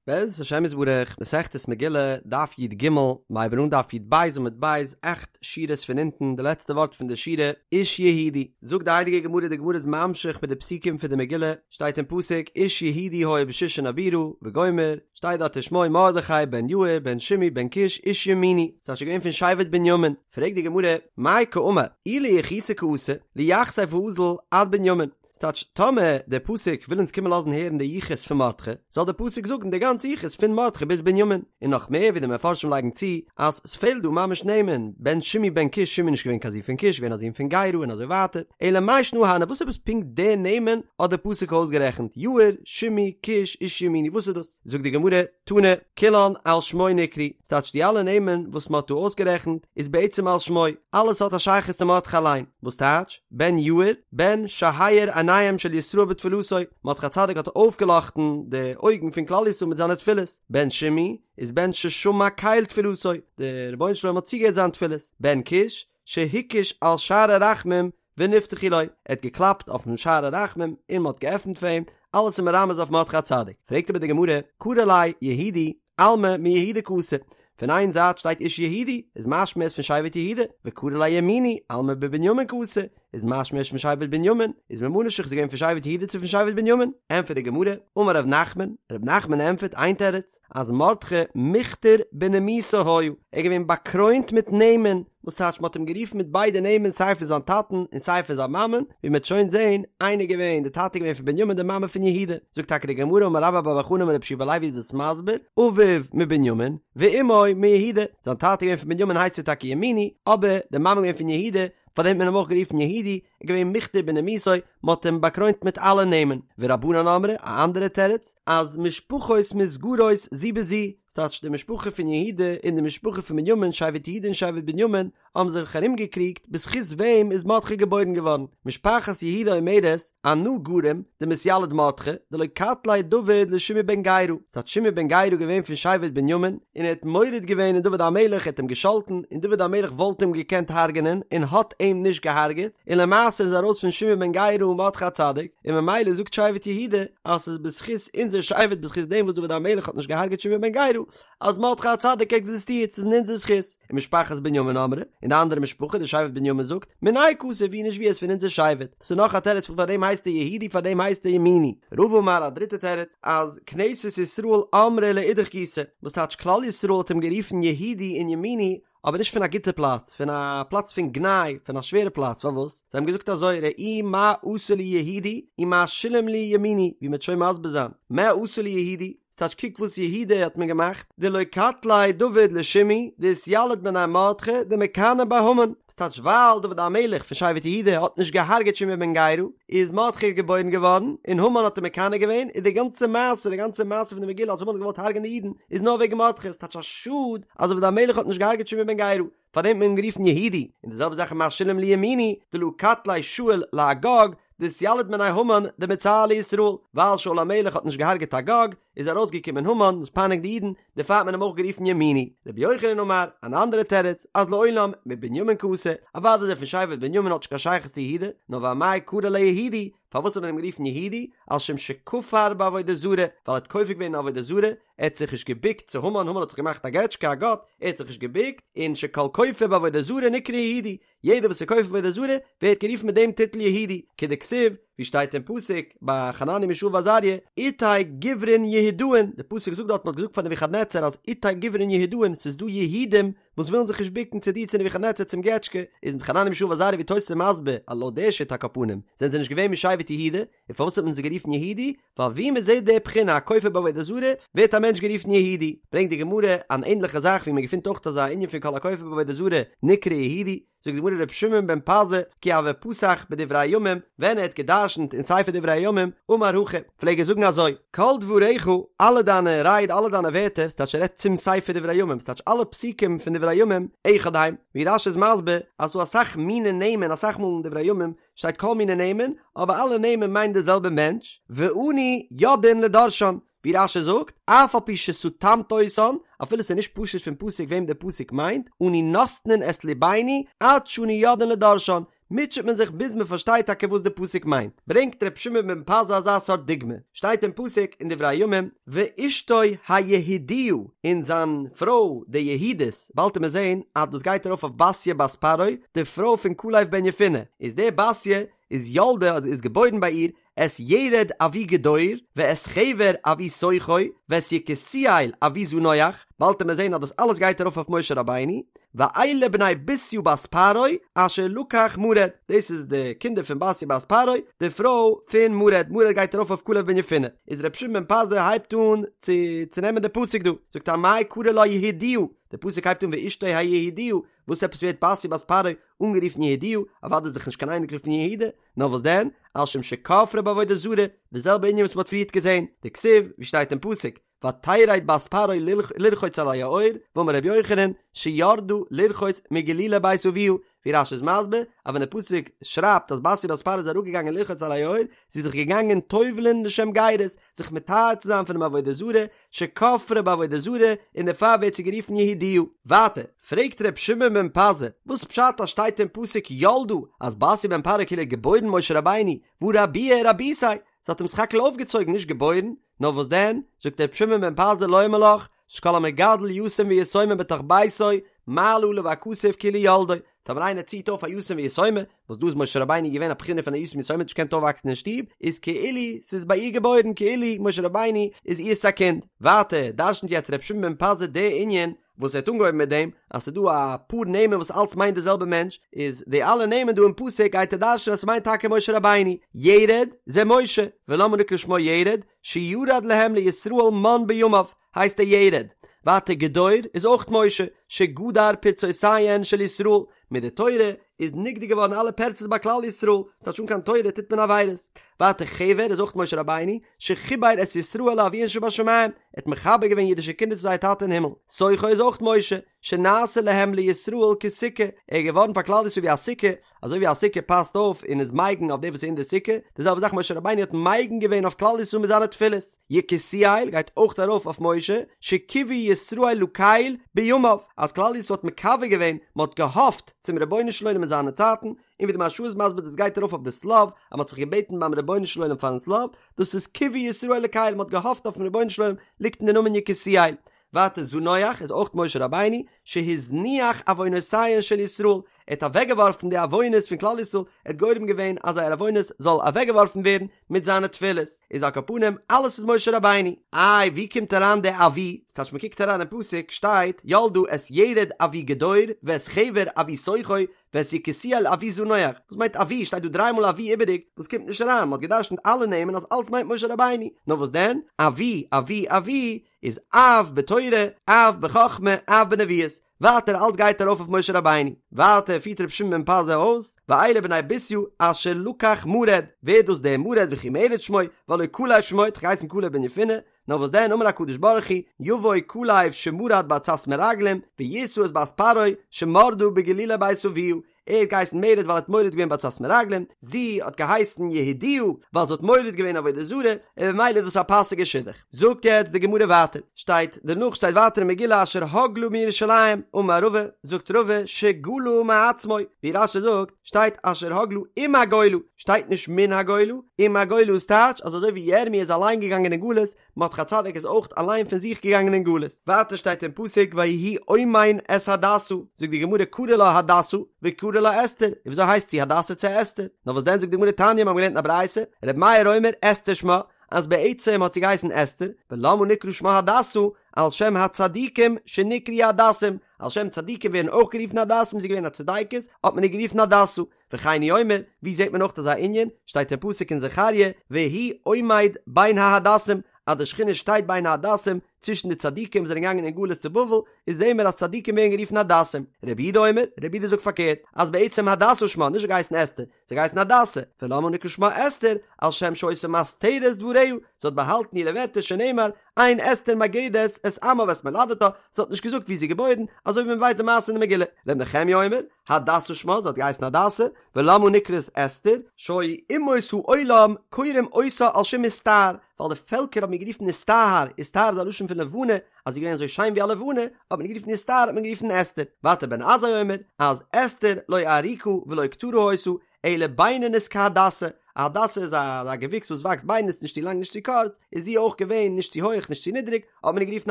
בעזרת השם יתברך, מסכת מגילה, דף י"ג, מ'הייבן אן דף י"ב עמוד ב', אכט שורות פון אונטן, די לעצטע ווארט פון די שורה, איש יהודי. זאגט די הייליגע גמרא, די גמרא איז ממשיך מיט די פסוקים פון די מגילה, שטייט אין פסוק, איש יהודי היה בשושן הבירה, וגומר, שטייט דארט ושמו מרדכי בן יאיר בן שמעי בן קיש איש ימיני, ס'טייטש געווען פון שבט בנימין, פרעגט די גמרא, מאי קאמר, אי ליחוסא קאתי, ליחסיה ואזיל עד בנימין, ס'טייטש, טאמער דער פסוק וויל אונז קומען לאזן הערן די יחוס פון מרדכי, זאל דער פסוק זאגן די גאנצע יחוס פון מרדכי ביז בנימין, און נאך מער ווי די מפרשים לייגן צו, אז ס'פעלט דא ממש נעמען, בן שמעי בן קיש, שמעי איז נישט געווען קיין זון פון קיש, געווען א זון פון גרא און אזוי ווייטער, אלא מאי שנא הני, וואס עפעס פונקט די נעמען האט דער פסוק אויסגערעכנט, יאיר, שמעי, קיש, איש ימיני, וואס איז דאס? זאגט די גמרא, תנא, כולן על שמו נקראו, ס'טייטש די אלע נעמען וואס מ'האט דא אויסגערעכנט איז בעצם על שמו, אלעס האט א שייכות צו מרדכי אליין, וואס טייטש, בן יאיר, בן שהאיר עיניהם של ישראל בתפילתו, מרדכי הצדיק האט אויפגעלאכטן די אויגן פון כלל ישראל מיט זיינע תפילות, בן שמעי, איז בן ששמע קל תפילתו, דער רבונו של עולם האט צוגעהערט זיין תפילות, בן קיש, שהקיש על שערי רחמים ונפתחו לו, ער האט געקלאפט אויפן שער הרחמים און מען האט געעפנט פאר אים, אלעס איז מרמז אויף מרדכי הצדיק. פרעגט אבער די גמרא, קרי ליה יהודי, אלמא מיהודה קאתי, פון איין זייט שטייט איש יהודי, איז משמע ער איז פון שבט יהודה, וקרי ליה ימיני, אלמא מבנימין קאתי, איז משמע ער איז פון שבט בנימין, איז ממה נפשך איז ער געווען פון שבט יהודה צו פון שבט בנימין? ענטפערט די גמרא, אמר ר' נחמן, ר' נחמן ענטפערט איין תירוץ, אז מרדכי מוכתר בנימוסא היה, ער איז געווען באקרוינט מיט נעמען, וואס טייטש מ'האט אים גערופן מיט ביידע נעמען סיי פון זיין טאטן און סיי פון זיין מאמען, ווי מ'וועט שוין זען, איינער געווען, די טאטע איז געווען פון בנימין די מאמע פון יהודה, זאגט טאקע די גמרא אמר רבה בר בר חנה אמר רבי יהושע בן לוי איז דאס מסביר, אביו מבנימין, ואמו מיהודה, זיין טאטע איז געווען פון בנימין הייסט ער טאקע ימיני, אבער די מאמע איז געווען פון יהודה, פארדעם האט מען אים אויך גערופן יהודי, ער איז געווען מוכתר בנימוסו, מען האט אים באקרוינט מיט אלע נעמען, ורבנן אמרי, א אנדערע תירוץ, אז משפחות מתגרות זו בזו, ס'טייטש די משפחה פון יהודה און די משפחה פון בנימין, שבט יהודה און שבט בנימין, האבן זיך ארומגעקריגט בזכות וועם איז מרדכי געבוירן געווארן, משפחת יהודה אומרת, אנא גרים דמתיליד מרדכי, דלא קטליה דוד לשמעי בן גרא, ס'טייטש שמעי בן גרא געווען פון שבט בנימין, און ער האט מורד געווען אין דוד המלך, ער האט אים געשאלטן, און דוד המלך וואלט אים געקענט הרג'נען, און האט אים נישט געהארגעט, און למעשה איז ארויס פון שמעי בן גרא מרדכי הצדיק, און ממילא זאגט שבט יהודה, אז ס'איז בזכות אונזער שבט בזכות דעם וואס דוד המלך האט נישט געהארגעט שמעי בן גרא, אז מרדכי הצדיק עקזיסטירט, ס'איז אין אונזער זכות. ומשפחת בנימין אמרי, און די אנדערע משפחה, די שבט בנימין זאגט, מיניה קאתי ווי נישט ווי ער איז פון אונזער שבט. דאס איז נאך א תירוץ פון פארדעם הייסט ער יהודי פארדעם הייסט ער ימיני. רבא אמר א דריטע תירוץ, אז כנסת ישראל אמרה לאידך גיסא, וואס טייטש כלל ישראל האט אים גערופן יהודי און ימיני, אבער נישט פון א גוטע פלאץ, פון א פלאץ פון גנאי, פון א שווערע פלאץ, פארוואס? זיי האבן געזאגט אזוי, ראו מה עשה לי יהודי ומה שילם לי ימיני, ווי מ'וועט שוין מסביר זיין, מה עשה לי יהודי, ס'טייטש קוק וואס יהודה האט מיר געמאכט, דלא קטליה דוד לשמעי, דאתיליד מיניה מרדכי, דמיקני ביה המן, ס'טייטש ווייל דוד המלך פון שבט יהודה האט נישט געהארגעט שמעי בן גרא, איז מרדכי געבוירן געווארן, און המן האט אים מקנא געווען, און די גאנצע מעשה, די גאנצע מעשה פון די מגילה אז המן האט געוואלט הרג'ענען די אידן, איז נאר וועגן מרדכי, ס'טייטש א שאד אז דוד המלך האט נישט געהארגעט שמעי בן גרא, פארדעם האט מען אים גערופן יהודי, און די זעלבע זאך מה שילם לי ימיני, דלא קטליה שאול לאגג, דאתיליד מיניה המן דמצער לישראל, ווייל שאול המלך האט נישט געהארגעט אגג, איז ארויסגעקומען המן וואס פייניגט די אידן, דערפאר האט מען אים אויך גערופן ימיני. רבי יוחנן אמר, אן אנדערע תירוץ, אז לעולם מבנימין קאתי, אוודאי איז ער פון שבט בנימין האט נישט קיין שייכות צו יהודה, נאר ואמאי קרו ליה יהודי, פארוואס האט מען אים גערופן יהודי, על שום שכפר בעבודה זרה, ווייל ער האט כופר געווען אין עבודה זרה, ער האט זיך נישט געבוקט צו המן, המן האט זיך געמאכט א געטשקע, א גאט, ער האט זיך נישט געבוקט, און שכל כופר בעבודה זרה נקרא יהודי, יעדער וואס איז כופר בעבודה זרה ווערט גערופן מיט דעם טיטל יהודי, כדכתיב, ווי שטייט אין פסוק ביי חנניה מישאל ועזריה, איתי גוברין יהודאין, די פסוק זאגט דארט מען האט געזאגט פאר נבוכדנצר אז איתי גוברין יהודאין, ס'איז דא יהודים וואס ווילן זיך נישט בוקן צו דיר צו נבוכדנצר צום געטשקע, איז מיט חנניה מישאל ועזריה ווי תוס' איז מסביר אז לויט די שיטה על כל פנים זענען זיי נישט געווען משבט יהודה, און פארוואס האט מען זיי גערופן יהודי? ווייל ווי מען זעט די בחינה א כופר בעבודה זרה ווערט א מענטש גערופן יהודי, ברענגט די גמרא אן ענדליכע זאך ווי מען געפינט אויך אזא ענין פון כל הכופר בעבודה זרה נקרא יהודי, זאגט די גמרא רבי שמעון בן פזי כי הוה פתח בדברי הימים, ווען ער האט גע'דרש'נט אין ספר דברי הימים, אמר הכי, פלעג ער זאגן אזוי, כל דבריך, אלע דיינע רייד אלע דיינע ווערטער, ס'טייטש ער רעדט צום ספר דברי הימים, ס'טייטש אלע פסוקים פון דברי הימים, אחד הם, ווי רש"י איז מסביר אז ס'דא אסאך מיני נעמען אסאך מאל אין דברי הימים שטייט כל מיני נעמען, אבער אלע נעמען מיינען די זעלבע מענטש, ואנו יודעין לדורשן, ווי רש"י זאגט, אף על פי שסתמת אותן, אפילו ס'איז נישט פשוט פון פסוק וועם דער פסוק מיינט, אנו נותנין את ליבנו עד שאנו יודעין לדורשן, מוטשעט מען זיך ביז מען פארשטייט טאקע וואס די פסוק מיינט. ברענגט ר' שמעון בן פזי אזא סארט דוגמא, שטייט אין פסוק אין דברי הימים, ואשתו היהודיה, און זיין פרוי די יהודית, באלד וועט מען זען אז דאס גייט ארויף אויף בתיה בת פרעה, די פרוי פון כלב בן יפונה, איז די בתיה איז ילדה אדער איז געבוירן ביי איר את ירד אבי גדור, ואת חבר אבי סוכו, ואת יקותיאל אבי זנוח, באלד וועט מען זען אז דאס אלעס גייט ארויף אויף משה רבינו, ואלה בני בתיה בת פרעה אשר לקח מרד, דאס איז די קינדער פון בתיה בת פרעה, די פרוי פון מרד, מרד גייט ארויף אויף כלב בן יפונה, איז ר' שמעון בן פזי הייבט אן צו צונעמען די פסוק דא, זאגט ער אמאי קרי לה יהודיה, די פסוק הייבט אן ואשתו היהודיה, וואס עפעס ווערט בתיה בת פרעה אנגערופן יהודיה, אוודאי איז דאך נישט קיין אייניקל פון יהודה, נאר וואס דען, על שום שכפרה בעבודה זרה, די זעלבע ענין וואס מען האט פריערט געזען, דכתיב, ווי שטייט אין פסוק, ותרד בת פרעה לרחוץ על היאור, ואמר רבי יוחנן, שירדה לרחוץ מגלולי בית אביה, ווי רש"י איז מסביר, אז ווען די פסוק שרייבט אז בתיה בת פרעה איז אראפגעגאנגען לרחוץ על היאור, זי איז זיך געגאנגען טובל'ן לשם גרות, זיך מטהר צו זיין פונעם עבודה זרה, שכפרה בעבודה זרה, און דערפאר ווערט זי גערופן יהודיה. ווייטער, פרעגט ר' שמעון בן פזי, וואס פשט אז שטייט אין פסוק ילדה אז בתיה בן פרעה כאילו האט געבוירן משה רבינו, והא רבוה רביתיה, זי האט אים סך הכל אויפגעצויגן נישט געבוירן, נאר וואס דען, זאגט ר' שמעון בן פזי לומר לך, שכל המגדל יתום ויתומה בתוך ביתו, מעלה עליו הכתוב כאילו ילדו, טאמער איינער ציט אויף א יתום ויתומה, וואס דא איז משה רבינו געווען א בחינה פון א יתום ויתומה האט נישט געקענט אויפוואקסן אין שטוב, איז כאילו ס'איז ביי איר געבוירן כאילו משה רבינו איז איר'ס א קינד. ווייטער דרש'נט יעצט ר' שמעון בן פזי די ענין וואס ער האט אנגעהויבן מיט דעם אז ס'איז דא א פאר נעמען וואס אלץ מיינט די זעלבע מענטש, איז די אלע נעמען דא אין פסוק גייט ער דרש'נען אז ס'מיינט טאקע משה רבינו, ירד זה משה, ולמה נקרא שמו ירד, שירד להם לישראל מן בימיו, הייסט ער ירד. ווייטער גדור איז אויך משה, שגדר פרצותיהן של ישראל, מיט די תורה איז נגדר געווארן אלע פרצות ביי כלל ישראל, ס'טייטש אן קיין תורה טוט מען עבירות. ווייטער חבר איז אויך משה רבינו, שחיבר את ישראל לאביהן שבשמים, ער האט מחבר געווען אידישע קינדער צו זייער טאטע אין הימל. סוכו איז אויך משה, שנעשה להם לישראל כסוכה, ער איז געווארן פאר כלל ישראל ווי א סוכה, אזוי ווי א סוכה פאסט אויף און איז מגין אויף דעם וואס איז אין די סוכה, די זעלבע זאך משה רבינו האט מגין געווען אויף כלל ישראל מיט זיינע תפילות. יקותיאל גייט אויך ארויף אויף משה, שקיוו ישראל לקל בימיו, אז כלל ישראל האט מקווה געווען, מען האט געהאפט צום רבונו של עולם אין זיינע צייטן, און ווי די מהרש"א איז מסביר דאס גייט ארויף אויף די שליו, אז מען האט זיך געבעטן ביים רבונו של עולם פארן שליו, דאס איז קיוו ישראל לקל, מען האט געהאפט אויפן רבונו של עולם, ליגט אין די נאמען יקותיאל. ווייטער זנוח איז אויך משה רבינו, שהזניח עוונותיהן של ישראל, ער האט אוועקגעווארפן די עוונות פון כלל ישראל, ער האט גורם געווען אז זייער עוונות זאל אוועקגעווארפן ווערן מיט זיינע תפילות, איז על כל פנים אלעס איז משה רבינו. איי ווי קומט אריין די אבי? ס'טייטש מ'קוקט אריין אין פסוק שטייט ילדה את ירד אבי גדור ואת חבר אבי סוכו ואת יקותיאל אבי זנוח, וואס מיינט אבי? שטייט דא דריי מאל אבי איבעריג, וואס קומט נישט אריין, מ'האט געדרשנט אלע נעמען אז אלץ מיינט משה רבינו, נאר וואס דען? אבי אבי אבי איז אב בתורה, אב בחכמה, אב בנביאות. ווייטער אלץ גייט ארויף אויף משה רבינו. ווייטער פירט רבי שמעון בן פזי אויס, ואלה בני בתיה אשר לקח מרד, ווער איז דאס דער מרד וכי מרד שמו, והלא כלב שמו, האט דאך געהייסן כלב בן יפונה, נאר וואס דען אמר הקדוש ברוך הוא, יבוא כלב שמרד בעצת מרגלים, וישא את בת פרעה שמרדה בגלולי בית אביה, ער האט געהייסן מרד ווייל ער האט מורד געווען בעצת מרגלים, זי האט געהייסן יהודיה ווייל זי האט מורד געווען עבודה זרה, און במילא איז דאס א פאסיגע שידוך. זאגט יעצט די גמרא ווייטער, שטייט דערנאך שטייט ווייטער אין מגילה אשר הגלה מירושלים, אמר רבא, זאגט רבא, שגלה מעצמו, ווי רש"י זאגט, שטייט אשר הגלה עם הגולה, שטייט נישט מן הגולה, עם הגולה איז טייטש אז אזוי ווי ירמי' איז אליין געגאנגען אין גלות, מרדכי הצדיק איז אויך אליין פון זיך געגאנגען אין גלות. ווייטער שטייט אין פסוק ויהי אומן את הדסה, זאגט די גמרא קרי לה הדסה וקרי לה אסתר, און וויאזוי הייסט זי הדסה צו אסתר? נאר וואס דען זאגט די גמרא תניא מיר האבן געלערנט אין א ברייתא, ר' מאיר אומר אסתר שמה, אז בעצם האט זי געהייסן אסתר, ולמה נקרא שמה הדסה, על שם הצדיקים שנקראו הדסים, על שם צדיקים ווערן אויך גערופן הדסים, זי איז געווען א צדיקת, האט מען איר גערופן הדסה. וכן הוא אומר, ווי זעט מען אויך אזא ענין, שטייט אין פסוק אין זכריה, והוא עומד בין ההדסים, אז די שכינה שטייט בין ההדסים, צווישן די צדיקים וואס זענען געגאנגען אין גלות צו בבל, איז זעהן מיר אז צדיקים ווערן גערופן הדסים. רבי יהודה אומר, רבי יהודה זאגט פארקערט, אז בעצם הדסה שמה, נישט געהייסן אסתר, זי האט געהייסן הדסה, ולמה נקרא שמה אסתר, על שם שהיתה מסתרת דבריה, זי האט באהאלטן אירע ווערטער שנאמר, אין אסתר מגדת את עמה ואת מולדתה, זי האט נישט געזאגט וואו זי איז געבוירן, אזוי ווי מען ווייסט די מעשה אין די מגילה. ר' נחמיה אומר, הדסה שמה, זי האט געהייסן הדסה, ולמה נקראת אסתר, שהיו אומות העולם קוראים אותה על שם איסטהר, ווייל די פעלקער האבן איר גערופן איסטהר, איסטהר איז א לשון פון. פון לבנה, אז זי איז געווען אזוי שיין ווי א לבנה, האט מען גערופן איר סטאר האט מען גערופן אסתר. ווייטער בן עזאי אומר, אז אסתר לא ארוכה ולא קצרה היתה, אלא בינונית כהדסה, א הדסה איז א געוויקס וואס וואקסט בינונית נישט צו לאנג נישט צו קורץ, איז זי אויך געווען נישט צו הויך נישט צו נידריג, האט מען איר גערופן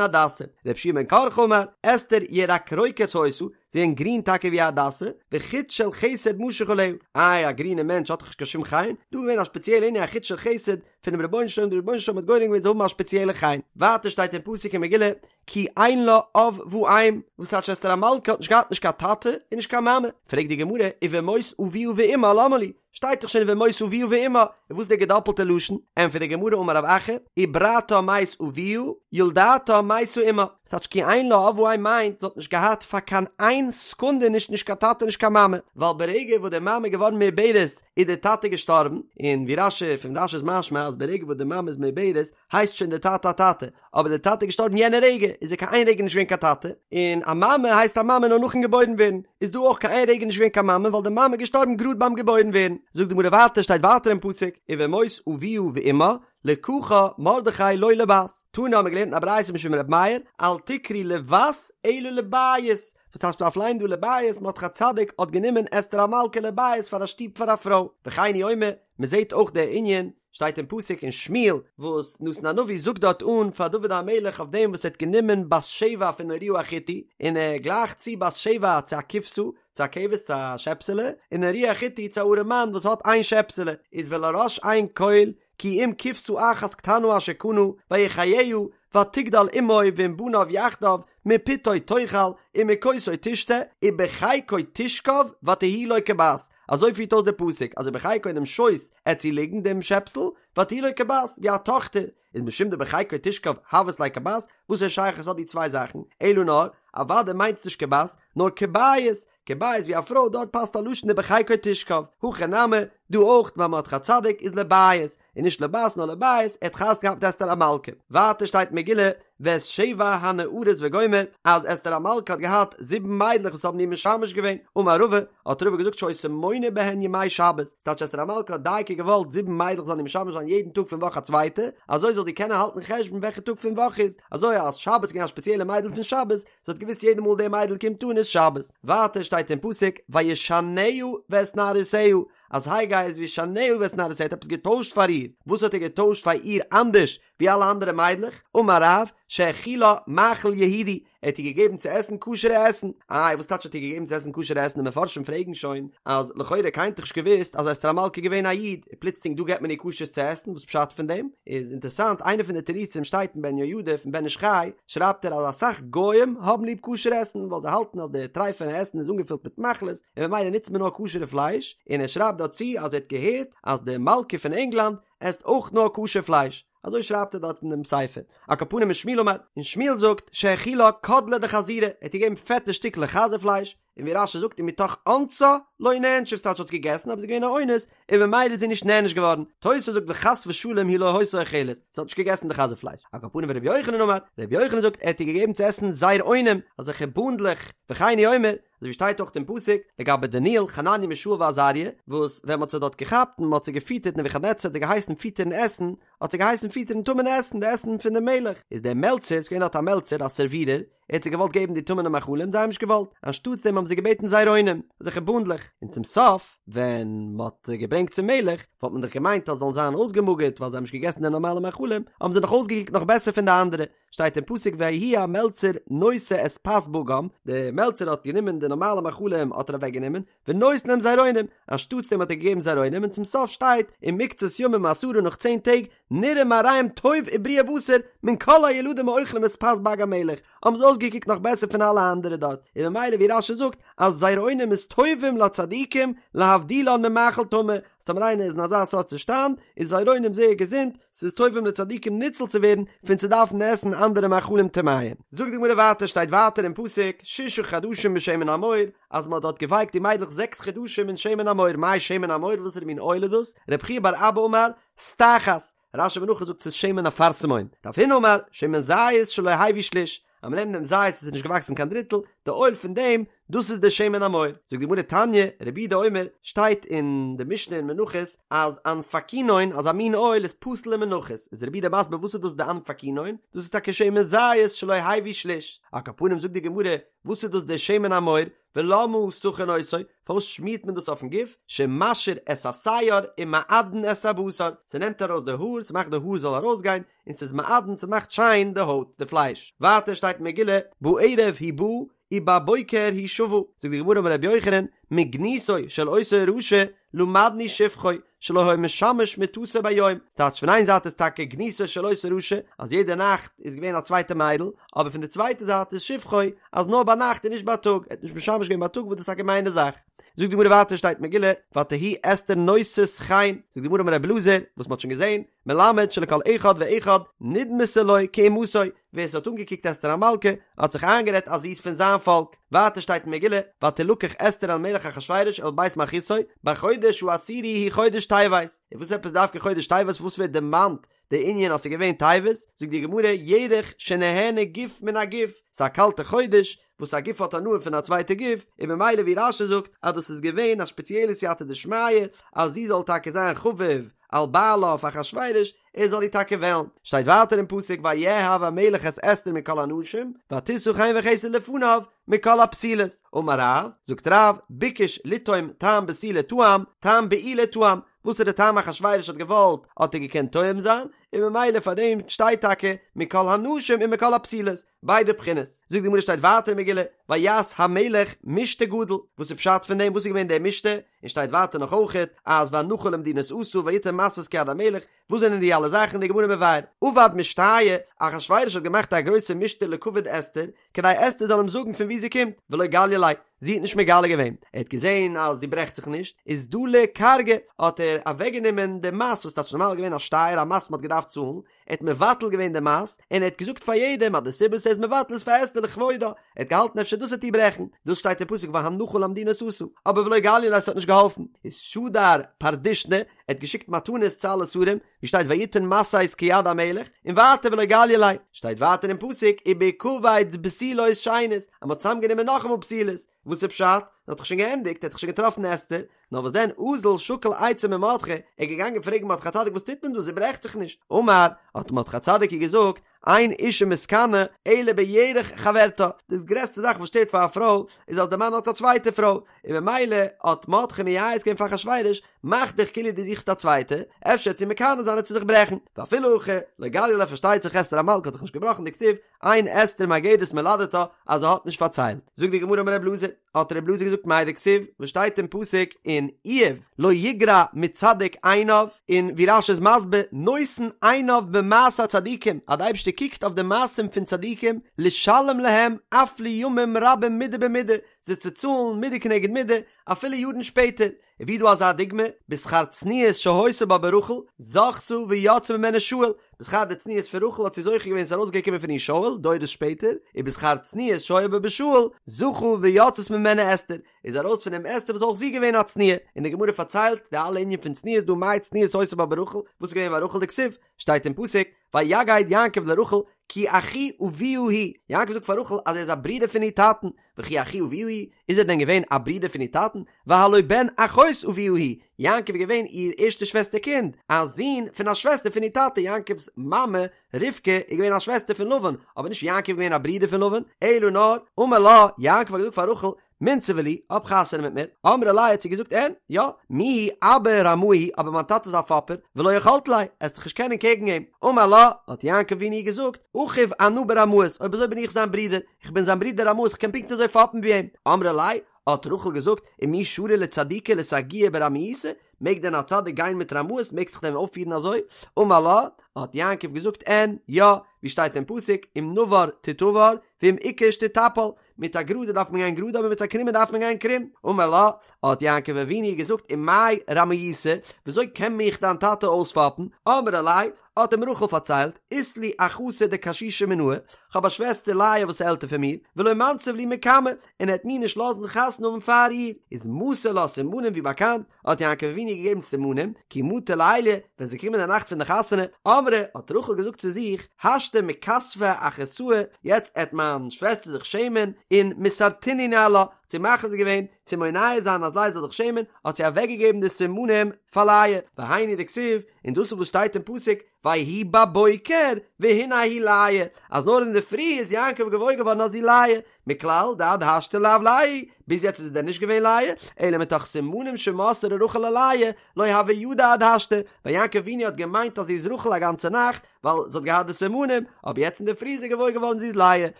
הדסה. רבי יהושע בן קרחה אמר, אסתר ירקרוקת היתה, זי געווען גרין טאקע ווי א הדסה, וחוט של חסד משוך עליה, איי א גרינע מענטש האט דאך נישט קיין שום חן, דא איז געווען א שפעציעלע ענין א חוט של חסד פונעם רבונו של עולם, דער רבונו של עולם האט גורם געווען זי זאל האבן א שפעציעלע חן. ווייטער שטייט אין פסוק אין מגילה, כי אין לה אב ואם, וואס טייטש אסתר המלכה האט נישט געהאט נישט קיין טאטע און נישט קיין מאמע, פרעגט די גמרא, ובמות אביה ואמה למה לי, שטייט דאך שוין ובמות אביה ואמה, און וואס איז די געדאפלטע לשון? ענטפערט די גמרא אמר רב אחא, עיברתה מת אביה, ילדתה מתה אמה, וואס טייטש כי אין לה אב ואם מיינט זי האט נישט געהאט פאר קיין איין סעקונדע נישט נישט קיין טאטע נישט קיין מאמע, ווייל ברגע וואס די מאמע איז געווארן מעוברת איז די טאטע געשטארבן, און ווי רש"י פון רש"י איז משמע אז ברגע וואס די מאמע איז מעוברת הייסט שוין דער טאטע א טאטע, אבער דער טאטע איז געשטארבן יענע רגע, איז ער קיין איין רגע נישט געווען קיין טאטע, און א מאמע הייסט א מאמע נאר נאכן געבוירן ווערן, איז דא אויך קיין איין רגע נישט געווען קיין מאמע ווייל די מאמע איז געשטארבן גראד ביים געבוירן ווערן. זאגט די גמרא ווייטער, שטייט ווייטער אין פסוק, ובמות אביה ואמה, לקחה מרדכי לו לבת. תנא האבן מיר געלערנט אין א ברייתא משום ר' מאיר, אל תקרי לבת אלא לבית, וואס טייטש מ'דארף ליינען דא לבית, מרדכי הצדיק האט גענומען אסתר המלכה לבית פאר א שטוב פאר א פרוי, וכן הוא אומר, מ'זעט אויך דער ענין, שטייט אין פסוק אין שמואל וואס נתן הנביא זאגט דארט אן פאר דוד המלך אויף דעם וואס ער האט גענומען בת שבע פון אוריה החתי און ער גלייכט צו בת שבע צו א כבשה צו א כבש צו א שעפסעלע און אוריה החתי צו א ארעם מאן וואס האט איין שעפסעלע איז ולראש אין כל כי אם כבשה אחת קטנה אשר קנה ויחיה ותגדל עמו ועם בניו יחדיו מפתו תאכל ומכוסו תשתה ובחיקו תשכב ותהי לו כבת אזוי פירט אויס דער פסוק אז ובחיקו אינעם שויס עט זי ליגן דעם שעפסל ותהי לו כבת ווי א טאכטער איז משום דבחיקו תשכב הוות ליה כבת וואס א שייכות האט די צוויי זאכן אלא נאר אוודאי מיינט עס נישט כבת נאר כבית כבית ווי א פרוי דארט פאסט א לשון ובחיקו תשכב הכא נמי דא אויך ביי מרדכי הצדיק איז לבית און נישט לבת נאר לבית, ער האט חתונה געהאט מיט אסתר המלכה. ווייטער שטייט אין מגילה ואת שבע הנערות וגומר אז אסתר המלכה האט געהאט זיבן מיידלעך וואס האבן איר משמש געווען, אמר רבא, האט רבא געזאגט שהיתה מונה בהן ימי שבת, ס'טייטש אסתר המלכה האט דייקא געוואלט זיבן מיידלעך זאלן איר משמש זיין יעדן טאג פון וואך א צווייטע, אזוי זאל זי קענען האלטן חשבון וועלכע טאג פון וואך איז, אזוי אז שבת איז געווען א שפעציעלע מיידל פון שבת, זי האט געוואוסט יעדע מאל די מיידל קומט אן איז שבת. ווייטער שטייט אין פסוק וישנה ואת נערותיה, אז הגי איז וישנה ואת נערותיה האט עפעס געטוישט פאר איר, וואס האט ער געטוישט פאר איר אנדערש ווי אלע אנדערע מיידלעך? אמר רב, שהאכילה מאכל יהודי, ער האט איר געגעבן צו עסן כשר'ע עסן, איי וואס טייטש האט איר געגעבן צו עסן כשר'ע עסן, די מפרשים פרעגן שוין אז לכאורה קיינער האט דאך נישט געוואוסט אז אסתר המלכה איז געווען א איד, און פלוצלינג דא געבט מען איר כשר'ס צו עסן, וואס פשט פון דעם? איז אינטערסאנט איינע פון די תירוצים שטייט אין בן יהוידע פון בן איש חי, שרייבט ער אז אסאך גוים האבן ליב כשר עסן ווייל זיי האלטן אז די טרייפענע עסן איז אנגעפילט מיט מחלות און ממילא נוצט מען נאר כשר'ע פלייש, און ער שרייבט דארט צו אז ער האט געהערט אז די מלכה פון ענגלאנד עסט אויך נאר כשר פלייש, אזוי שרייבט ער דארט אין דעם ספר. על כל פנים ושמואל אמר, און שמואל זאגט שהאכילה קדלי דחזירי, ער האט איר געגעבן פעטע שטיקלעך חזיר פלייש, און ווי רש"י זאגט ומתוך אונסה לא נענשה ס'טייטש האט געגעסן אבער זי איז געווען א אונס און ממילא איז זי נישט נענש געווארן, תוס' זאגט וחס ושלום היא לא היתה אוכלת, זי האט נישט געגעסן די חזיר פלייש, על כל פנים ורבי יוחנן אמר, רבי יוחנן זאגט ער האט איר געגעבן צו עסן זרעונים, אזעלכע בונדלעך, וכן הוא אומר, אזוי ווי שטייט אויך אין פסוק לגבי דניאל, חנניה מישאל ועזריה, וואס ווען מען האט זיי דארט געכאפט און מען האט זיי געפיטערט נבוכדנצר האט זיי געהייסן פיטערן עסן, האט זיי געהייסן פיטערן טמא'נע עסן, די עסן פון דעם מלך, איז דער מלצר, ס'איז געווען דארט א מלצר, א סערווירער, ער האט זיי געוואלט געבן די טמא'נע מאכלים, זיי האבן נישט געוואלט, אנשטאטס דעם האבן זיי געבעטן זרעונים, אזעלכע בונדלעך, און צום סוף, ווען מען האט זיי געברענגט צום מלך, וואלט מען דאך געמיינט אז זיי זאלן זיין אויסגעמאגערט ווייל זיי האבן נישט געגעסן די נארמאלע מאכלים, האבן זיי נאך אויסגעקוקט נאך בעסער פון די אנדערע, שטייט אין פסוק ויהי המלצר נושא את פת בגם, דער מלצר האט גענומען די נארמאלע מאכלים האט ער אוועק גענומען, ונותן להם זרעונים, אנשטאטס דעם האט ער געגעבן זרעונים, און צום סוף שטייט ומקצת ימים עשרה נאך צען טעג, נראה מראיהם טוב ובריאי בשר מן כל הילדים האוכלים את פת בג המלך, האבן זיי אויסגעקוקט נאך בעסער פון אלע אנדערע דארט, און ממילא ווי רש"י זאגט אז זרעונים איז טובים לצדיקים להבדילן ממאכל טמא, אז טאמער איינער איז אין אזא סארט צושטאנד איז זרעונים זייער געזונט, ס'איז טובים לצדיקים ניצול צו ווערן פון צו דארפן עסן אנדערע מאכלים טמאים. זאגט די גמרא ווייטער שטייט ווייטער אין פסוק ששה חדשים בשמן המור, אז מען האט דארט געווייקט די מיידלעך זעקס חדשים אין שמן המור, מאי שמן המור וואסערע מין אויל איז דאס? רב חייא בר אבא אמר, סטחת, רש"י אין מנחות זאגט ס'איז שמן אפרסמון, רב הונא אמר, שמן זית שלא הביא שליש, אז מען נעמט דעם זית וואס איז נישט געוואקסן קיין דריטל, די אויל פון דעם, דאס איז די שמן המור. זאגט די גמרא תניא, רבי יהודה אומר, שטייט אין די משנה אין מנחות אז אנפקינון, אזא מין אויל איז פסול למנחות, איז רבי יהודה מסביר וואס איז דאס די אנפקינון, דאס איז טאקע שמן זית שלא הביא שליש. על כל פנים זאגט די גמרא, וואס איז דאס די שמן המור, ולמה סכין אותו, פארוואס שמירט מען דאס אויפן גוף, שמשיר את השער ומעדן את הבשר, ס'נעמט ארויס די האר, ס'מאכט די האר זאל ארויסגיין, און ס'איז מעדן, ס'מאכט שיין די הויט, די פלייש. ווייטער שטייט אין מגילה, בערב היא באה ובבוקר היא שבה, זאגט די גמרא אמר רבי יוחנן, מגנותו של אותו רשע למדנו שבחו, שלא היה משמש מטתו ביום, ס'טייטש פון איין זייט איז טאקע גנותו של אותו רשע אז יעדע נאכט איז געווען א צווייטע מיידל, אבער פון די צווייטע זייט איז שבחו אז נאר ביינאכט און נישט בייטאג, ער האט נישט משמש געווען בייטאג וואס דאס איז א געמיינע זאך. זאגט די גמרא ווייטער שטייט מגילה ותהי אסתר נושאת חן, זאגט די גמרא אמר רבי אלעזר, וואס מ'האט שוין געזען, מלמד שלכל אחד ואחד נדמתה לו כאומתו, ווער ס'האט אנגעקוקט אסתר המלכה האט זיך איינגערעדט אז זי איז פון זיין פאלק. ווייטער שטייט אין מגילה, ותלקח אסתר אל מלך אחשורוש אל בית מלכותו, בחודש העשירי הוא חודש טבת. און וואס עפעס דווקא חודש טבת וואס ווערט דערמאנט די ענין אז ס'איז געווען טבת? זאגט די גמרא, ירח שנהנה גוף מן הגוף, ס'איז א קאלטע חודש, וואס א גוף האט הנאה פון א צווייטע גוף, און ממילא ווי רש"י זאגט אז דאס איז געווען א שפעציעלע סייעתא דשמיא אז זי זאל טאקע זיין חביב על בעלה אויף אחשורוש, ער זאל איר טאקע וועלן. שטייט ווייטער אין פסוק ויאהב המלך את אסתר מכל הנשים ותשא חן וחסד לפניו מכל הבתולות. אמר רב, זאגט רב, ביקש לטעום טעם בתולה טעם, טעם בעולה טעם, וואסערע טעם אחשורוש האט געוואלט האט ער געקענט טועם זיין, און ממילא פאר דעם שטייט טאקע מכל הנשים און מכל הבתולות, ביידע בחינות. זאגט די גמרא שטייט ווייטער אין מגילה ויעש המלך משתה גדול, וואס איז פשט פון דעם וואס איז געווען דער משתה, און שטייט ווייטער נאך אויכעט אז והנחה למדינות עשה ויתן משאות כיד המלך, וואס זענען די אלע זאכן די גמרא מבאר, עבד משתיא, אחשורוש האט געמאכט א גרויסע משתה לכבוד אסתר, כדי אסתר זאל אים זאגן פון וואו זי קומט, ולא גליא ליה, זי האט נישט מגלה געווען, ער האט געזען אז זי ברעכט זיך נישט, איז דלי כרגא, האט ער אוועקגענומען די מס וואס טייטש נארמאל געווען א שטייער א מס מען האט געדארפט צאלן, ער האט מבטל געווען די מס, און ער האט געזאגט פאר יעדעם אז די סיבה וואס ער איז מבטל איז פאר אסתר לכבודה, ער האט געהאלטן אפשר דאס וועט איר ברעכן, דאס שטייט אין פסוק והנחה למדינות עשה, אבער ולא גליא ליה ס'האט נישט געהאלפן, איז שדר פרדישני, ער האט געשיקט מתנות צו אלע שרים, ווי שטייט ויתן משאות כיד המלך, און ווייטער ולא גליא ליה, שטייט ווייטער אין פסוק ובהקבץ בתולות שנית, אז מ'האט צוזאמגענומען נאכאמאל בתולות, וואס איז פשט? ער האט דאך שוין געענדיגט, ער האט דאך שוין געטראפן אסתר, נאר וואס דען אזל שקל עצה ממרדכי, ער איז געגאנגען פרעגן מרדכי הצדיק וואס טוט מען דא, זי ברעכט זיך נישט, אמר, האט מרדכי הצדיק איר געזאגט, אין אשה מתקנאה אלא בירך חברתה, דאס גרעסטע זאך וואס שטערט פאר א פרוי איז אז די מאן האט א צווייטע פרוי, און ממילא האט מרדכי מייעץ געווען פאר אחשורוש, מאך דיך כאילו דו זוכסט א צווייטע, אפשר וועט זי מקנא זיין וועט זי זיך ברעכן, ואפילו הכי לא גליא ליה פארשטייט זיך אסתר המלכה האט זיך נישט געבראכן דכתיב אין אסתר מגדת מולדתה אז זי האט נישט פארציילט, זאגט די גמרא אמר רב אלעזר, האט רב אלעזר געזאגט מאי דכתיב וואס שטייט אין פסוק אין איוב לא יגרע מצדיק עיניו, און ווי רש"י איז מסביר נותן עיניו במעשה הצדיקים אז די אייבערשטער קוקט אויף די מעשים פון צדיקים לשלם להם אף לימים רבים מידה במידה זיי צו צאלן מידה כנגד מידה אפילו יארן שפעטער, און ווי דא אזא דוגמא, בשכר צניעות שהיתה בה ברחל, זכתה ויצא ממנה שאול, בשכר די צניעות פון רחל האט זי זוכה געווען ס'איז ארויסגעקומען פון איר שאול, דורות שפעטער, ובשכר צניעות שהיה בה בשאול, זכה ויצאת ממנו אסתר, איז ארויס פון אים אסתר וואס אויך זי געווען א צנועה, און די גמרא פארציילט די אלע ענין פון צניעות דא מאי צניעות היתה בה ברחל, וואס איז געווען ביי רחל דכתיב, שטייט אין פסוק, ויגד יעקב לרחל כי אחי אביה הוא, יעקב זאגט פאר רחל אז ער איז א ברודער פון איר טאטן, וכי אחי אביה הוא, איז ער דען געווען א ברודער פון איר טאטן, והלא בן אחות אביה הוא, יעקב איז געווען איר ערשטע שוועסטער קינד, א זון פון א שוועסטער פון איר טאטע, יעקב'ס מאמע רבקה איז געווען א שוועסטער פון לבן, אבער נישט יעקב איז געווען א ברודער פון לבן, אלא נאר, אמר לה, יעקב האט געזאגט פאר רחל, מינצבא לי, האב חתונה מיט מיר. אמרה ליה האט זי געזאגט אין, יא, מיהו אבא רמאי הוא, אבער מיין טאטע איז א פאפער, ולא יכלת ליה, עסט זיך נישט קענען קעגן אים. אמר לה, האט יעקב אבינו געזאגט, אחיו אנא ברמאות, אויב אזוי בין איך זיין ברודער, איך בין זיין ברודער רמאות, איך קען פונקט אזוי פאפן ווי אים. אמרה ליה, האט רחל געזאגט, ומי שרי לצדיקה לסגויי ברמיותא, מעג דען א צדיק גיין מיט רמאות, מעגסט זיך דען אויפפירן אזוי? אמר לה, האט יעקב געזאגט, אין, יא, ווי שטייט אין פסוק, אם נבר תתבר, ואם עקש תטפל, מיט א גראדע דארף מען גיין גראד אבער מיט א קרומע דארף מען גיין קרום. אמר לה, האט יעקב אבינו געזאגט ומאי רמיותא, וויאזוי קען מיך דיין טאטע אויספאפן? אמרה ליה, האט אים רחל פארציילט, אית לי אחתא דקשישא מינאי, כ'האב א שוועסטער לאה וואס איז עלטער פון מיר, ולא מנסיב לי מקמה, און ער וועט מיר נישט לאזן חתונה האבן פאר איר. איז מסר לה סימנים ווי באקאנט, האט יעקב אבינו געגעבן סימנים, כי מטא ליליא, ווען ס'איז געקומען די נאכט פון די חתונה, אמרה, האט רחל געזאגט צו זיך, השתא מכספא אחתאי, יעצט עט מיין שוועסטער זיך שעמען, און מסרתינהו ניהלה, האט האט זי מכריז געווען צו מונע זיין אז לאה זאל זיך שעמען, האט זי אוועקגעגעבן די סימנים פאר לאה, והיינו דכתיב, און דאס איז וואס שטייט אין פסוק, ויהי בבוקר והנה היא לאה, אז נאר אינדערפרי איז יעקב געוואויר געווארן אז זי לאה, מכלל דעד השתא לאו לאה, ביז יעצט איז זי דען נישט געווען לאה, אלא מתוך סימנים שמסרה רחל ללאה, לא הוה ידע עד השתא, ווייל יעקב אבינו האט געמיינט אז זי איז רחל א גאנצע נאכט, ווייל זי האט געהאט די סימנים, אבער יעצט אינדערפרי איז ער געוואויר געווארן זי איז לאה,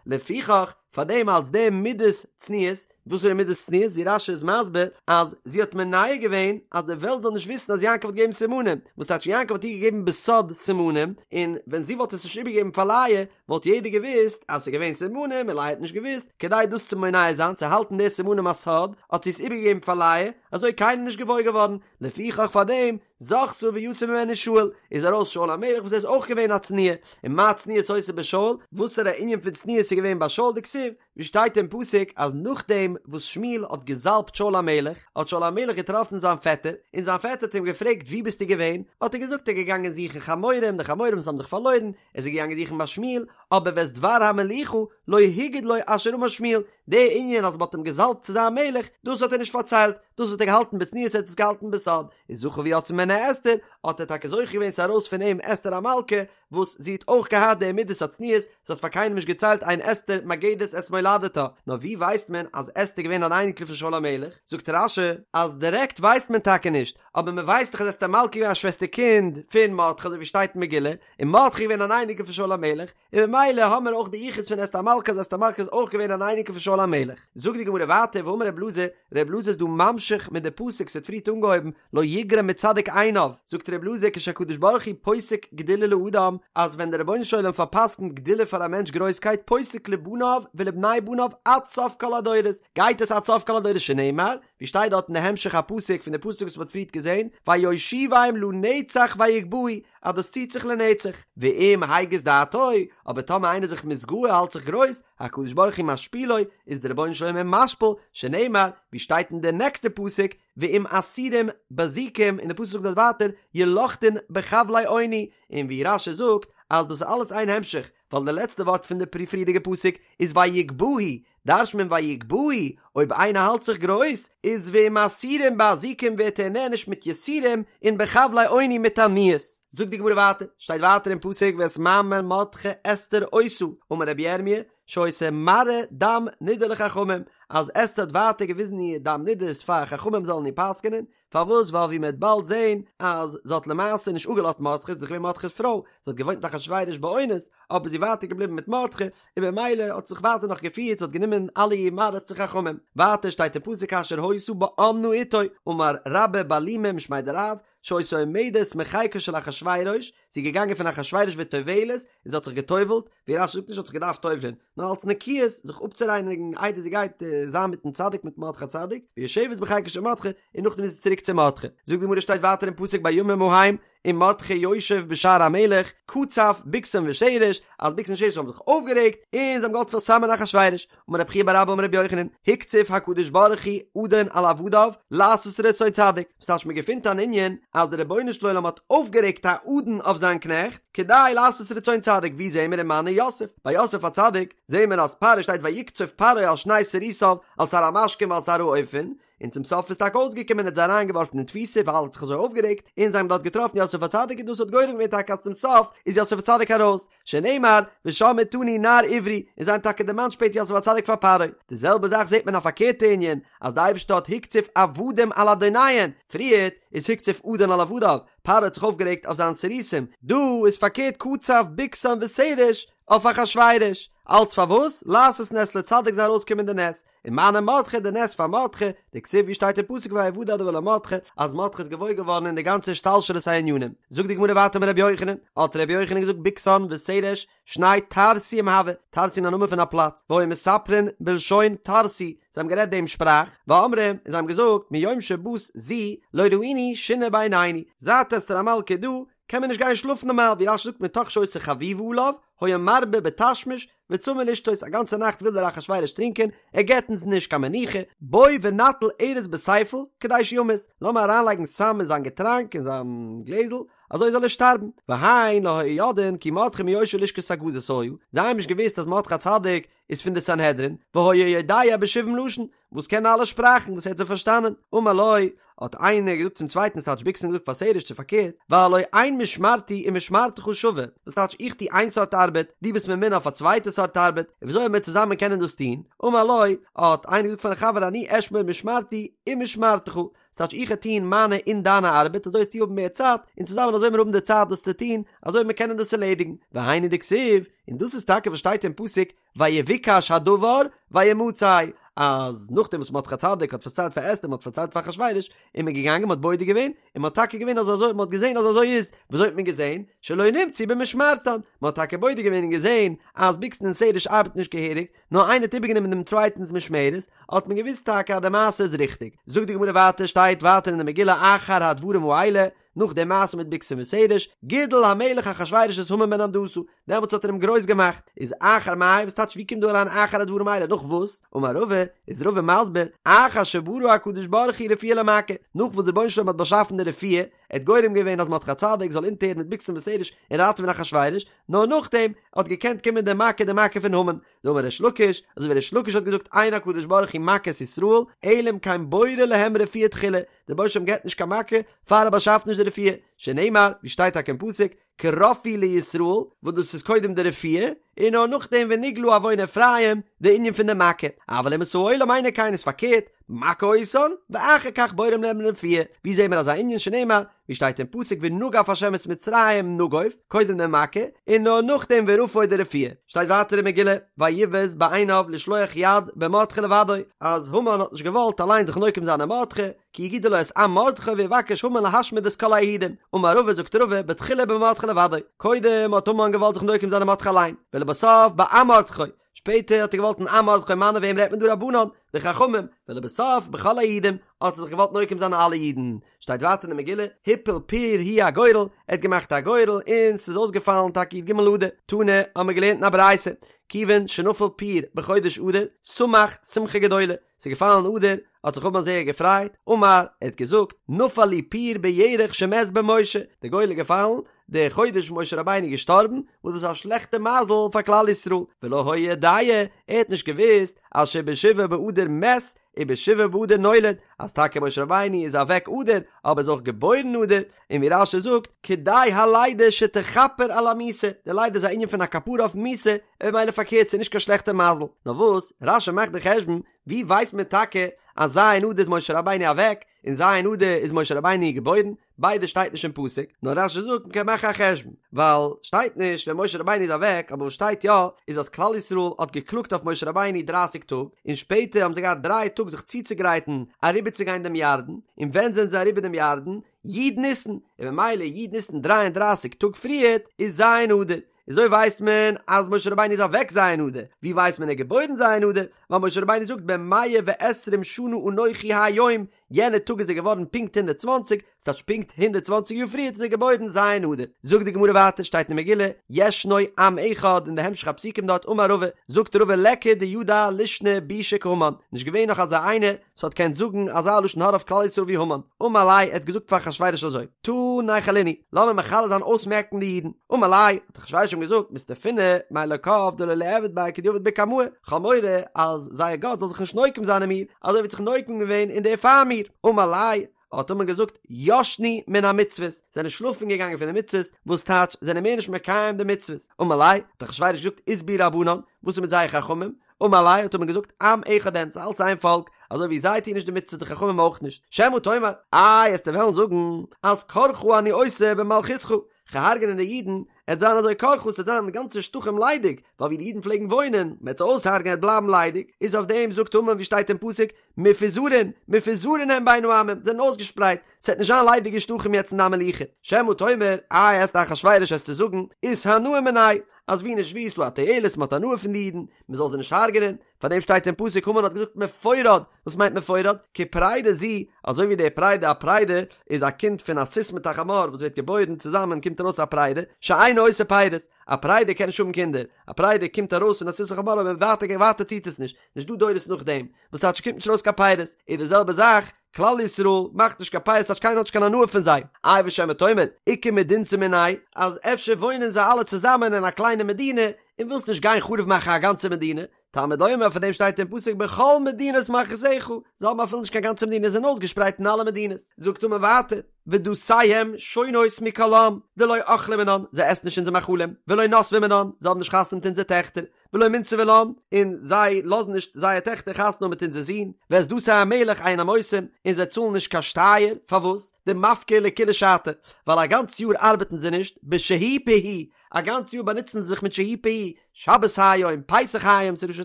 לפיכך, פאר דעם אלס די מידת צניעות, וואס איז די מידת צניעות? ווי רש"י איז מסביר אז זי האט מונע געווען אז די וועלט זאל נישט וויסן אז יעקב האט געגעבן סימנים, וואס טייטש יעקב האט איר געגעבן בסוד סימנים, און ווען זי וואלט עס נישט איבערגעגעבן פאר לאה וואלט יעדער געוואוסט אז ס'איז געווען סימנים און לאה האט נישט געוואוסט, כדי דאס צו מונע זיין צו האלטן די סימנים א סוד האט זי עס איבערגעגעבן פאר לאה, אזוי קיינער נישט געוואויר געווארן, לפיכך פאר דעם זכתה ויצא ממנה שאול, איז ארויס שאול המלך וואס ער איז אויך געווען א צנועה, און מה צניעות היתה בשאול, וואסערע ענין פון צניעות איז געווען ביי שאול דכתיב, ווי שטייט אין פסוק אז נאכדעם וואס שמואל האט געזאלבט שאול המלך, האט שאול המלך געטראפן זיין פעטער, און זיין פעטער האט אים געפרעגט וואו ביסטו געווען, האט ער געזאגט ער איז געגאנגען זוכן חמורים, די חמורים וואס האבן זיך פארלוירן, ער איז געגאנגען זוכן ביי שמואל, אבער ואת דבר המלוכה לא הגיד לו אשר אמר שמואל, די ענין אז מען האט אים געזאלבט צו זיין מלך, דאס האט ער נישט פארציילט, דאס האט ער געהאלטן בצניעות ער האט עס געהאלטן בסוד, איז זכה ויצאה ממנו אסתר, האט ער טאקע זוכה געווען ס'איז ארויס פון אים אסתר המלכה, וואס זי האט אויך געהאט די מידת הצניעות, זי האט פאר קיינעם נישט געציילט אין אסתר מגדת את מולדתה, נאר ווי ווייסט מען אז אסתר איז געווען אן אייניקל פון שאול המלך? זאגט רש"י אז דירעקט ווייסט מען טאקע נישט, אבער מען ווייסט דאך אז אסתר המלכה איז געווען א שוועסטער קינד פון מרדכי אזוי ווי שטייט אין מגילה, און מרדכי איז געווען אן אייניקל פון שאול המלך, און ממילא האמער אויך די יחוס פון אסתר המלכה אז אסתר המלכה איז אויך געווען אן אייניקל פון שאול המלך. זאגט די גמרא ווייטער ואמר רב אלעזר, רב אלעזר איז דא ממשיך מיט די פסוק ס'האט פריערט אנגעהויבן לא יגרע מצדיק עיניו, זאגט רב אלעזר כשהקדוש ברוך הוא פוסק גדולה לאדם, אז ווען דער רבונו של עולם פארפסקנט גדולה פאר א מענטש גרויסקייט פוסק לבניו ולבני בניו עד סוף כל הדורות, גייט עס עד סוף כל הדורות שנאמר, ווי שטייט דארט אין די המשך הפסוק פון די פסוק וואס מ'האט פריערט געזען, ויושיבם לנצח ויגבהו, אז דאס ציט זיך לנצח, ואם הגיס דעתו, אבער טאמער איינער איז זיך מתגאה האלט זיך גרויס, הקדוש ברוך הוא משפילו, איז דער רבונו של עולם אים משפיל, שנאמר, ווי שטייט אין די נעקסטע פסוק, ואם אסורים בזיקים, און די פסוק זאגט דארט ווייטער, ילכדון בחבלי עוני, און ווי רש"י זאגט, אז דאס איז אלעס איין המשך, ווייל די לעצטע ווארט פון די פריערדיגע פסוק איז ויגבהו, דרש'נט מען ויגבהו, אויב איינער האלט זיך גרויס, איז ואם אסורים באזיקים ווערט ער נענש מיט יסורים, און בחבלי עוני מיט עניות. זאגט די גמרא ווייטער, שטייט ווייטער אין פסוק ואת מאמר מרדכי אסתר עושה, אמר רבי ירמי', שהיתה מראה דם נידה לחכמים, אז אסתר האט ווייטער געוויזן איר דם נידות פאר חכמים זאלן איר פסק'נען, פארוואס ווייל ווי מ'וועט באלד זעהן אז זי האט למעשה נישט אפגעלאזט מרדכי, זי איז דאך געווען מרדכי'ס פרוי, זי האט געוואוינט מיט אחשורוש באונס, אבער זי איז ווייטער געבליבן מיט מרדכי, און במילא האט זיך ווייטער נאך געפירט, זי האט גענומען אלע איר מראות צו חכמים. ווייטער שטייט אין פסוק כאשר היתה באמנה אתו, אמר רבה בר לימא משמיה דרב, שהיתה עומדת מחיקו של אחשורוש, זי איז געגאנגען פון אחשורוש וטובלת, און זי האט זיך געטובלט, ווי רש"י זאגט נישט האט זיך געדארפט טובל'ען, נאר אלס נקיות, זיך אפצורייניגן איידער זי גייט זיין מיטן צדיק מיט מרדכי הצדיק, ויושבת בחיקו של מרדכי, און נאכדעם איז זי צוריק צו מרדכי. זאגט די גמרא שטייט ווייטער אין פסוק בימים ההם, ומרדכי יושב בשער המלך, קצף בגתן ותרש, אז בגתן און תרש האבן זיך אויפגערעגט, און זיי האבן געוואלט פארסמ'ען אחשורוש. אמר רב חייא בר אבא אמר רבי יוחנן, הקציף הקדוש ברוך הוא אדון על עבדיו, לעשות רצון צדיק. וואס טייטש מען געפינט אן ענין אז דער רבונו של עולם האט אויפגערעגט א אדון אויף זיין קנעכט, כדי לעשות רצון צדיק, ווי זעהן מיר ומנו יוסף? ביי יוסף הצדיק זעהן מיר אז פרעה שטייט ויקצוף פרעה על שני סריסיו, על שר המשקים ועל שר האופים, און צום סוף איז טאקע אויסגעקומען ער האט זיי אריינגעווארפן אין תפיסה ווייל ער האט זיך אזוי אויפגערעגט, און זיי האבן דארט געטראפן יוסף הצדיק און דאס האט גורם געווען טאקע אז צום סוף איז יוסף הצדיק ארויס, שנאמר ושם אתנו נער עברי, און זיי האבן טאקע דערמאנט שפעטער יוסף הצדיק פאר פרעה. די זעלבע זאך זעט מען א פארקערטע ענין, אז די אייבערשטער האט הקציף עבדים על אדוניהן, פריערט איז הקציף אדון על עבדיו, פרעה האט זיך אויפגערעגט אויף זיין סריסים, דא איז פארקערט קצף בגתן ותרש אויף אחשורוש, אלץ פארוואס? לעשות נס לצדיק זאל ארויסקומען די נס, ומנו מרדכי די נס פאר מרדכי, דכתיב ווי שטייט אין פסוק ויודע הדבר למרדכי אז מרדכי איז געוואויר געווארן אין די גאנצע השתלשלות הענינים. זאגט די גמרא ווייטער אמר רבי יוחנן, האט רבי יוחנן געזאגט בגתן ותרש שני טרסיים הוו, טרסיים איז א נאמען פון א פלאץ, והיו מספרין בלשון טרסי, זיי האבן גערעדט דעם שפראך, ואמרי, און זיי האבן געזאגט מיום שבאת זו לא ראינו שינה בעינינו, זייט אסתר המלכה איז דא קען מען נישט גיין שלאפן נארמאל, ווי רש"י זאגט מתוך שהיתה חביבה עליו, היה מרבה בתשמיש, וצמא לשתות, א גאנצע נאכט וויל דער אחשורוש טרינקען, ער געבט אונז נישט קיין מנוחה, בוא ונטיל ארס בספל, כדי שימות, לאמיר אריינלייגן סם אין זיין געטראנק, אין זיין גלעזל, אזוי זאל ער שטארבן. והן לא היו יודעין כי מרדכי מיושבי לשכת הגזית היה, זיי האבן נישט געוואוסט אז מרדכי הצדיק. איז פון די סנהדרין, והיה יודע בשבעים לשון, וואס קען אלע שפראכן וואס ער האט זיי פארשטאנען, אמר לו, האט איינער געזאגט צום צווייטן ס'טייטש בגתן געזאגט פאר תרש צו פארקערט, והלא אין משמרתי ומשמרתך שווה, וואס טייטש איך טו איין סארט ארבעט, דו ביסט ממונה אויף א צווייטע סארט ארבעט, און וויאזוי וועלן מיר צוזאמען קענען דאס טון, אמר לו, האט איינער געזאגט פארן חבר אני אשמור משמרתי ומשמרתך, ס'טייטש איך וועל טון מיינע און דיינע ארבעט אזוי וועסטו האבן מער צייט, און צוזאמען אזוי וועלן מיר האבן די צייט דאס צו טון, אזוי וועלן מיר קענען דאס ערלעדיגן, והיינו דכתיב, און דאס איז טאקע וואס שטייט אין פסוק, ויבוקש הדבר וימצא, אז נאכדעם וואס מרדכי הצדיק האט פארציילט פאר אסתר, מען האט פארציילט פאר אחשורוש, איז מען געגאנגען מען האט בודק געווען, און מען האט טאקע געווען אז אזוי, מען האט געזען אז אזוי איז, וויאזוי האט מען געזען? שלא נמצאו במשמרתן, מען האט טאקע בודק געווען און געזען אז בגתן און תרש ארבעטן נישט געהעריג, נאר איינער האט איבערגענומען דעם צווייטנס משמרת, האט מען געוואוסט טאקע אז די מעשה איז ריכטיג. זאגט די גמרא ווייטער, שטייט ווייטער אין די מגילה אחר הדברים האלה, נאך די מעשה מיט בגתן ותרש, גידל המלך אחשורוש את המן בן המדתא, דעמאלטס האט ער אים גרויס געמאכט, איז אחר מאי, וואס טייטש ווי קומט דא אריין אחר הדברים האלה, נאך וואס? אמר רבא, איז רבא מסביר, אחר שברא הקדוש ברוך הוא רפואה למכה, נאך וואס דער רבונו של עולם האט באשאפן די רפואה, ער האט גורם געווען אז מרדכי הצדיק זאל אונטערהערן מיט בגתן ותרש און ראטעווען אחשורוש, נאר נאכדעם האט געקענט קומען די מכה די מכה פון המן, דאמר ריש לקיש, אזוי ווי ריש לקיש האט געזאגט אין הקדוש ברוך הוא מכה את ישראל, אלא אם כן בורא להם רפואה תחילה, דער רבונו של עולם געבט נישט קיין מכה פאר ער באשאפט נישט די רפואה, שנאמר, ווי שטייט טאקע אין פסוק, כי רפאו לישראל, וואס דאס איז קודם די רפואה, און נאר נאכדעם ונגלה עון אפרים, די ענין פון די מכה, אבל אומות העולם אינו כן איז פארקערט, מכה אותן, ואחר כך בוראים להם רפואה, ווי זעהן מיר אזא ענין שנאמר, ווי שטייט אין פסוק ונגף השם את מצרים נגוף, קודם די מכה, און נאר נאכדעם ורפא די רפואה. שטייט ווייטער אין מגילה, ויבז בעיניו לשלוח יד במרדכי לבדו, אז המן האט נישט געוואלט אליין זיך נוקם זיין אין מרדכי, כי יגידו לו את עם מרדכי ויבקש המן להשמיד את כל היהודים. אמר רבא זאגט רבא, בתחילה במרדכי לבדו, קודם האט המן געוואלט זיך נוקם זיין אין מרדכי אליין, ולבסוף בעם מרדכי, שפעטער האט ער געוואלט אין עם מרדכי מני וועם רעדט מען דא רבנן, די חכמים, ולבסוף בכל היהודים, האט ער זיך געוואלט נוקם זיין אין אלע אידן. שטייט ווייטער אין די מגילה, הפיל פור הוא הגורל, ער האט געמאכט א גורל און ס'איז אויסגעפאלן טאקע י"ג אדר, תנא, האמיר געלערנט אין א ברייתא, כיוון שנפל פור בחודש אדר, שמח שמחה גדולה, ס'איז געפאלן אדר, האט זיך המן זייער געפרייט, אמר, ער האט געזאגט, נפל לי פור בירח שמת בו משה, די גורל איז געפאלן די חודש וואס משה רבינו איז געשטארבן, וואס דאס איז א שלעכטע מזל פאר כלל ישראל, ולא היה יודע, ער האט נישט געוואוסט אז שבשבעה באדר מת ובשבעה באדר נולד, אז טאקע משה רבינו איז אוועק אדר, אבער איז אויך געבוירן אדר, און ווי רש"י זאגט, כדאי הלידה שתכפר על המיתה, די לידה איז א ענין פון א כפרה אויפן מיתה, און ממילא פארקערט ס'איז נישט קיין שלעכטע מזל, נאר וואס, רש"י מאכט די חשבון, ווי ווייסט מען טאקע אז ז' אדר איז משה רבינו אוועק, און ז' אדר איז משה רבינו געבוירן, ביידע שטייט נישט אין פסוק, נאר רש"י זאגט מ'קען מאכן א חשבון, ווייל שטייט נישט ווען משה רבינו איז אוועק, אבער וואס שטייט יא איז אז כלל ישראל האט געקלאגט אויף משה רבינו דרייסיג טאג, און שפעטער האבן זיי געהאט דריי טאג זיך צוצוגרייטן אריבערצוגיין דעם ירדן, און ווען זענען זיי אריבער דעם ירדן? י' ניסן, און ממילא י' ניסן דריי און דרייסיג טאג פריערט איז ז' אדר, אזוי ווייסט מען אז משה רבינו איז אוועק ז' אדר, ווי ווייסט מען ער איז געבוירן ז' אדר? ווייל משה רבינו זאגט בן מאה ועשרים שנה אנכי היום, יענע טאג איז ער געווארן פונקט 120, ס'טייטש פונקט 120 יאר פריערט איז ער געבוירן ז' אדר. זאגט די גמרא ווייטער שטייט אין מגילה, ישנו עם אחד אין די המשך הפסוקים דארט אמר רבא, זאגט רבא ליכא דידע לישנא בישא כהמן, נישט געווען נאך אזא איינער וואס האט געקענט זאגן אזא לשון הרע אויף כלל ישראל ווי המן, אמר ליה ער האט געזאגט פאר אחשורוש אזוי, תא ניכלינהו, לאמיר מכלה זיין אויסמעקן די אידן, אמר ליה, האט אחשורוש אים געזאגט, מסתפינא מאלקיו דלא ליעבד ביה כדעבד בקמאי, כ'האב מורא אז זייער גאט זאל זיך נישט נוקם זיין אין מיר, אזוי ווי ער האט זיך נוקם געווען אין די פאר מיר, אמר ליה, האט המן געזאגט, ישנו מן המצוות, זענען שלאפן געגאנגען פון די מצוות, וואס טייטש, זענען מער נישט מקיים די מצוות, אמר ליה, האט אחשורוש געזאגט, אית בהו רבנן, וואס איז מיט זייער חכמים? אמר ליה האט המן געזאגט עם אחד הן ס'איז אלץ איין פאלק, אזוי ווי זיי טוען נישט די מצוות די חכמים אויך נישט, שמא תאמר, איי עסטו וועלן זאגן אז קרחה אני עושה במלכותך, כ'גיי הרג'נען די אידן, עט זיין אזוי קרחה ס'עט זיין גאנצע שטחים ליידיג, ווייל ווי די אידן פלעגן וואוינען, מ'עט זיי אויסהרג'נען עט בלייבן ליידיג, איז אויף דעם זאגט המן ווי שטייט אין פסוק, מפוזרין, מפוזרין הם בין העמים, זענען אויסגעשפרייט, ס'עט נישט זיין ליידיגע שטחים יעצט אין דיין מלוכה, שמא תאמר, איי עסטו אחשורוש עסטו זאגן, אתהנאו מינייהו, אז ווי נישט ווי איז דא א תועלת מ'האט הנאה פון די אידן, מ'זאל זיי נישט הרג'נען, פאר דעם שטייט אין פסוק המן האט געזאגט מפורד, וואס מיינט מפורד? כפרידה זו, אזוי ווי די פרידה א פרידה איז א קינד פון א סוס מיט א חמור וואס ווערט געבוירן צוזאמען קומט ארויס א פרידה, שאינה עושה פירות, א פרידה קען נישט האבן קינדער, א פרידה קומט ארויס פון א סוס און חמור אבער ווייטער ווייטער ציט עס נישט, נישט דא דורות נאכדעם, וואס טייטש קומט נישט ארויס קיין פירות, איז די זעלבע זאך, כלל ישראל מאכט נישט קיין פירות טייטש קיינער האט נישט קיין הנאה פון זיי, איי ושמא תאמר, איכא מדינתא מינייהו, אז אפשר וואוינען זיי אלע צוזאמען אין א קליינע מדינה, און ווילסט נישט גיין חרוב מאכן א גאנצע מדינה, תלמוד לומר פאר דעם שטייט אין פסוק בכל מדינות מלכותך, זיי האבן אפילו נישט קיין גאנצע מדינה זיי זענען אויסגעשפרייט אין אלע מדינות, זאגט המן ווייטער, ודתיהם שונות מכל עם, דלא אכלי מינן, זיי עסן נישט אונזער מאכלים, ולא נסבי מינן, זיי האבן נישט חתונה מיט אונזער טעכטער, ולא מנסבי לן, און זיי לאזן נישט זייער טעכטער חתונה האבן מיט אונזער זין, ואת דתי המלך אינם עושים, און זיי צאלן נישט קיין שטייער, פארוואס? דמפקי לכולא שתא, ווייל א גאנץ יאר ארבעטן זיי נישט, בשה"י פה"י, א גאנץ יאר באנוצן זיי זיך מיט שה"י פה"י, שבת היום, פסח היום, ס'איז ראשי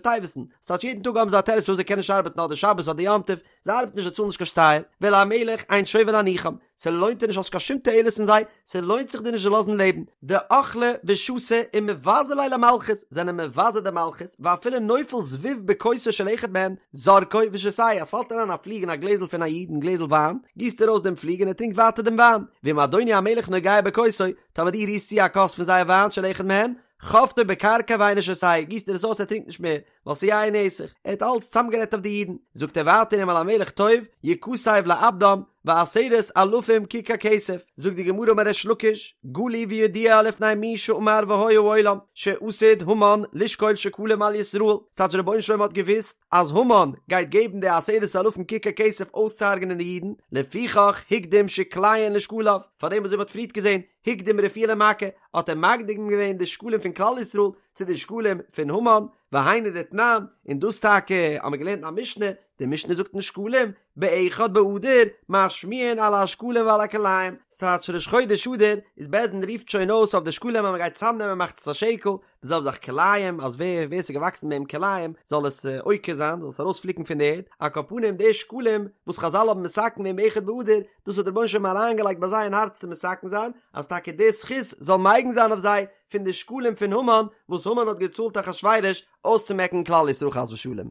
תיבות'ן, ס'טייטש יעדן טאג האבן זיי א תירוץ פארוואס זיי קענען נישט ארבעטן אדער שבת אדער יום טוב, זיי ארבעטן נישט זיי צאלן נישט קיין שטייער, ולמלך אין שווה להניחם, ס'לוינט דיר נישט האסט קיין שום תועלת פון זיי, ס'לוינט זיך דיר נישט זיי לאזן לעבן, דאכלי ושתו ומבזי ליה למלכות, זענען מבזה די מלכות, ואפילו נופל זבוב בכוסו של אחד מהן, זורקו ושותהו, אז ס'פאלט אריין א פליג אין א גלעזל פון א איד אין גלעזל וויין, גיסט ער אויס דעם פליג און ער טרינקט ווייטער דעם וויין, ואם אדוני המלך נוגע בכוסו, טאמער דו רירסט צו א כוס פון זייער וויין של אחד מהן, חובטו בקרקע ואינו שותהו, גיסט ער עס אויס ער טרינקט נישט מער, ווייל ס'איז יין נסך, ער האט אלץ צאמגערעדט אויף די אידן, זאגט ער ווייטער אם על המלך טוב, יכתב לאבדם, ועשרת אלפים ככר כסף, זאגט די גמרא אמר ריש לקיש, גלוי וידוע לפני מי שאמר והיה העולם, שעתיד המן לשקול שקלים על ישראל, ס'טייטש דער רבונו של עולם האט געוואוסט אז המן גייט געבן די עשרת אלפים ככר כסף אויסצוהרג'נען די אידן, לפיכך הקדים שקליהן לשקליו, פארדעם אזוי ווי מ'האט פריערט געזען, הקדים רפואה למכה, האט ער מקדים געווען די שקלים פון כלל ישראל צו די שקלים פון המן, והיינו דתנן, און דאס טאקע האבן מיר געלערנט אין א משנה, די משנה זאגט אין שקלים, באחד באדר, משמיעין על השקלים ועל הכלאים, ס'טייטש ראש חודש אדר איז בית דין רופט שוין אויס אויף די שקלים אז מ'גייט צאמנעמען מחצית השקל, די זעלבע זאך כלאים, אז ווער ווער ס'איז געוואקסן ביי אים כלאים זאל עס עוקר זיין, זאל עס ארויספליקן פון די ערד, על כל פנים די שקלים וואס חזל האבן מתקן געווען באחד באדר, דאס האט דער רבונו של עולם אריינגעלייגט ביי זיי אין הארץ צו מתקן זיין, אז טאקע די זכות זאל מגין זיין אויף זיי פון די שקלים פון המן, וואס המן האט געצאלט אחשורוש אויסצומעקן כלל ישראל חס ושלום.